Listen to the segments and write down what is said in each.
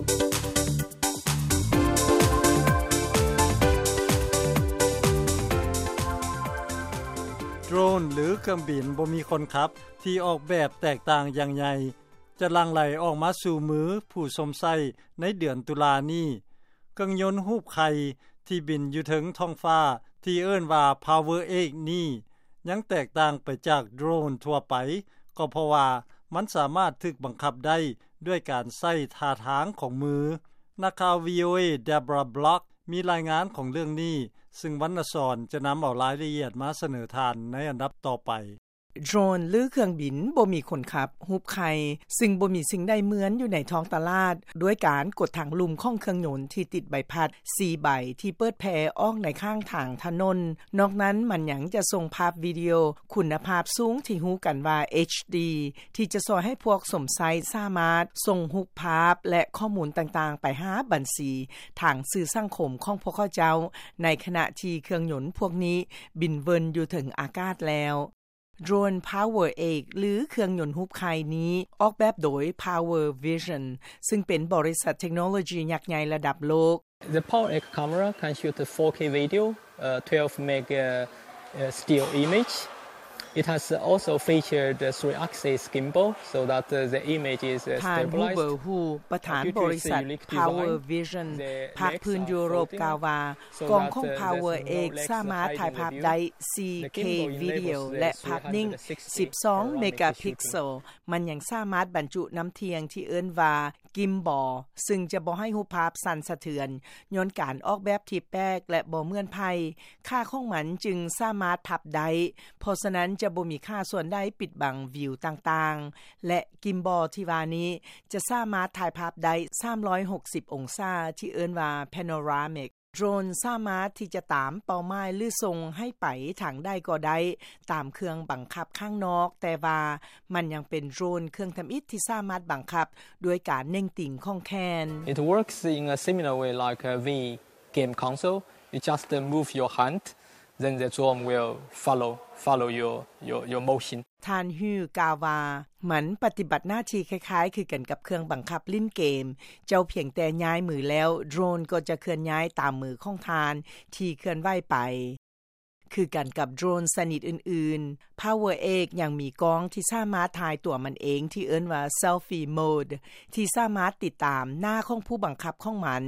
ໂດຣນ ຫຼື ເຄື່ອງບິນບໍ່ມີຄົນຂັບ ທີ່ອອກແບບແຕກຕ່າງຢ່າງໃຫຍ່ ຈະຫຼັ່ງໄຫຼອອກມາສູ່ມືຜູ້ຊົມໃຊ້ໃນເດືອນຕຸລານີ້. ເຄື່ອງຍົນຮູບໄຂ່ທີ່ບິນຢູ່ເທິງທ້ອງຟ້າ ທີ່ເອີ້ນວ່າ Power Axe ນີ້ ຍັງແຕກຕ່າງໄປຈາກໂດຣນທົ່ວໄປ ກໍເພາະວ່າມັນສາມາດຖືກບັງຄັບໄດ້ດ້ວຍການໃຊ້ທ່າທາງຂອງມື. ນັກຂ່າວ ວີໂອເອ Deborah Block ມີລາຍງານຂອງເລື່ອງນີ້ ຊຶ່ງວັນນະສອນຈະນຳເອົາລາຍລະອຽດມາສະເໜີທ່ານໃນອັນດັບຕໍ່ໄປ. ໂດຣນ ຫຼື ເຄື່ອງບິນບໍ່ມີຄົນຂັບ ຮູບໄຂ່ ຊຶ່ງບໍ່ມີສິ່ງໃດເໝືອນຢູ່ໃນທ້ອງຕະຫຼາດ ດ້ວຍການກົດທາງລຸ່ມຂອງເຄື່ອງຍົນທີ່ຕິດໃບພັດສີ່ໃບ ທີ່ເປີດແຜ່ອອກໃນຂ້າງທາງຖະໜົນ. ນອກນັ້ນມັນຍັງຈະສົ່ງພາບວິດີໂອຄຸນນະພາບສູງທີ່ຮູ້ກັນວ່າ ເອັດດີ ທີ່ຈະຊ່ວຍໃຫ້ພວກຊົມໃຊ້ສາມາດສົ່ງຮູບພາບ ແລະ ຂໍ້ມູນຕ່າງໆໄປຫາບັນຊີທາງສື່ສັງຄົມຂອງພວກເຂົາເຈົ້າ ໃນຂະນະທີ່ເຄື່ອງຍົນພວກນີ້ບິນເວີນຢູ່ເທິງອາກາດແລ້ວ. ໂດຣນ Power Axe ຫຼື ເຄື່ອງຍົນຮູບໄຂ່ນີ້ ອອກແບບໂດຍ Power Vision ຊຶ່ງເປັນບໍລິສັດເທັກໂນໂລຢີຍັກໃຫຍ່ລະດັບໂລກ. The Power Axe camera can shoot four K video, uh, twelve meg, uh, uh, still image. It has also featured a three-axis gimbal so that, uh, the image is, uh, stabilized. ທ່ານ Hubert Hu ປະທານບໍລິສັດ Power Vision ພາກພື້ນຢູໂຣບ ກ່າວວ່າ ກ້ອງຂອງ Power Axe ສາມາດຖ່າຍພາບໄດ້ສີ່ເຄວິດີໂອ ແລະ ພາບນິ່ງສິບສອງເມກາພິກເຊວ. ມັນຍັງສາມາດບັນຈຸນ້ຳທ່ຽງທີ່ເອີ້ນວ່າ Gimbal ຊຶ່ງຈະບໍ່ໃຫ້ຮູບພາບສັ່ນສະເທືອນ ຍ້ອນການອອກແບບທີ່ແປກ ແລະ ບໍ່ເໝືອນໃຜ. ຂາຂອງມັນຈຶ່ງສາມາດພັບໄດ້ ເພາະສະນັ້ນຈະບໍ່ມີຂາສ່ວນໃດປິດບັງວິວຕ່າງໆ ແລະ Gimbal ທີ່ວ່ານີ້ຈະສາມາດຖ່າຍພາບໄດ້ສາມຮ້ອຍຫົກສິບອົງສາ ທີ່ເອີ້ນວ່າ Panoramic. ໂດຣນສາມາດທີ່ຈະຕາມເປົ້າໝາຍ ຫຼື ສົ່ງໃຫ້ໄປທາງໃດກໍໄດ້ຕາມເຄື່ອງບັງຄັບຂ້າງນອກ, ແຕ່ວ່າມັນຍັງເປັນໂດຣນເຄື່ອງທຳອິດທີ່ສາມາດບັງຄັບດ້ວຍການເໜັງຕີງຂອງແຂນ. It works in a similar way like a Wii game console. You just, uh, move your hand, then the drone will follow, follow your, your, your motion. ທ່ານ Hu ກ່າວວ່າ ມັນປະຕິບັດໜ້າທີ່ຄ້າຍໆຄືກັນກັບເຄື່ອງບັງຄັບຫຼິ້ນເກມ. ເຈົ້າພຽງແຕ່ຍ້າຍມືແລ້ວ ໂດຣນກໍຈະເຄື່ອນຍ້າຍຕາມມືຂອງທ່ານທີ່ເຄື່ອນໄຫວໄປ. ຄືກັນກັບໂດຣນຊະນິດອື່ນໆ, Power Axe ຍັງມີກ້ອງທີ່ສາມາດຖ່າຍຕົວມັນເອງທີ່ເອີ້ນວ່າ Selfie Mode ທີ່ສາມາດຕິດຕາມໜ້າຂອງຜູ້ບັງຄັບຂອງມັນ,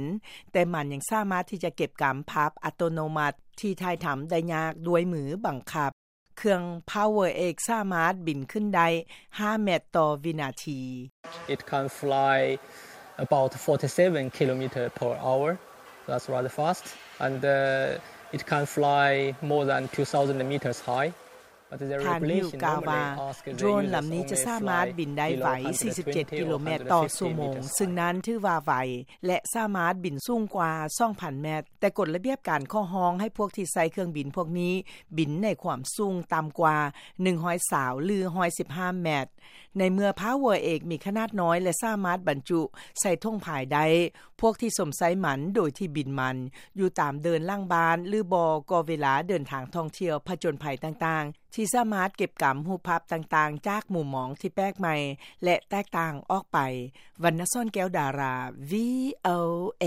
ແຕ່ມັນຍັງສາມາດທີ່ຈະເກັບກຳພາບອັດຕະໂນມັດທີ່ຖ່າຍທຳໄດ້ຍາກດ້ວຍມືບັງຄັບ. ເຄື່ອງ Power Axe ສາມາດບິນຂຶ້ນໄດ້ຫ້າແມັດຕໍ່ວິນາທີ. It can fly about forty-seven kilometer per hour. That's rather fast. And, uh, it can fly more than two thousand meters high. But the regulation normally ask the user to fly at a speed of, uh, ທ່ານ Hu ກ່າວວ່າ ໂດຣນລຳນີ້ຈະສາມາດບິນໄດ້ໄວສີ່ສິບເຈັດກິໂລແມັດຕໍ່ຊົ່ວໂມງ, ຊຶ່ງນັ້ນຖືວ່າໄວ ແລະ ສາມາດບິນສູງກວ່າສອງພັນແມັດ. ແຕ່ກົດລະບຽບການຂໍຮ້ອງໃຫ້ພວກທີ່ໃຊ້ເຄື່ອງບິນພວກນີ້ບິນໃນຄວາມສູງຕ່ຳກວ່າໜຶ່ງຮ້ອຍຊາວ ຫຼື ໜຶ່ງຮ້ອຍສິບຫ້າແມັດ. ໃນເມື່ອ Power Axe ມີຂະໜາດນ້ອຍ ແລະ ສາມາດບັນຈຸໃສ່ຖົງພາຍໄດ້, ພວກທີ່ຊົມໃຊ້ມັນໂດຍທີ່ບິນມັນຢູ່ຕາມເດີ່ນຫຼັງບ້ານ ຫຼື ບໍ່ກໍເວລາເດີນທາງທ່ອງທ່ຽວຜະຈົນໄພຕ່າງໆ ທີ່ສາມາດເກັບກຳຮູບພາບຕ່າງໆຈາກມຸມມອງທີ່ແປກໃໝ່ ແລະ ແຕກຕ່າງອອກໄປ. ວັນນະສອນ ແກ້ວດາລາ ວີໂອເອ.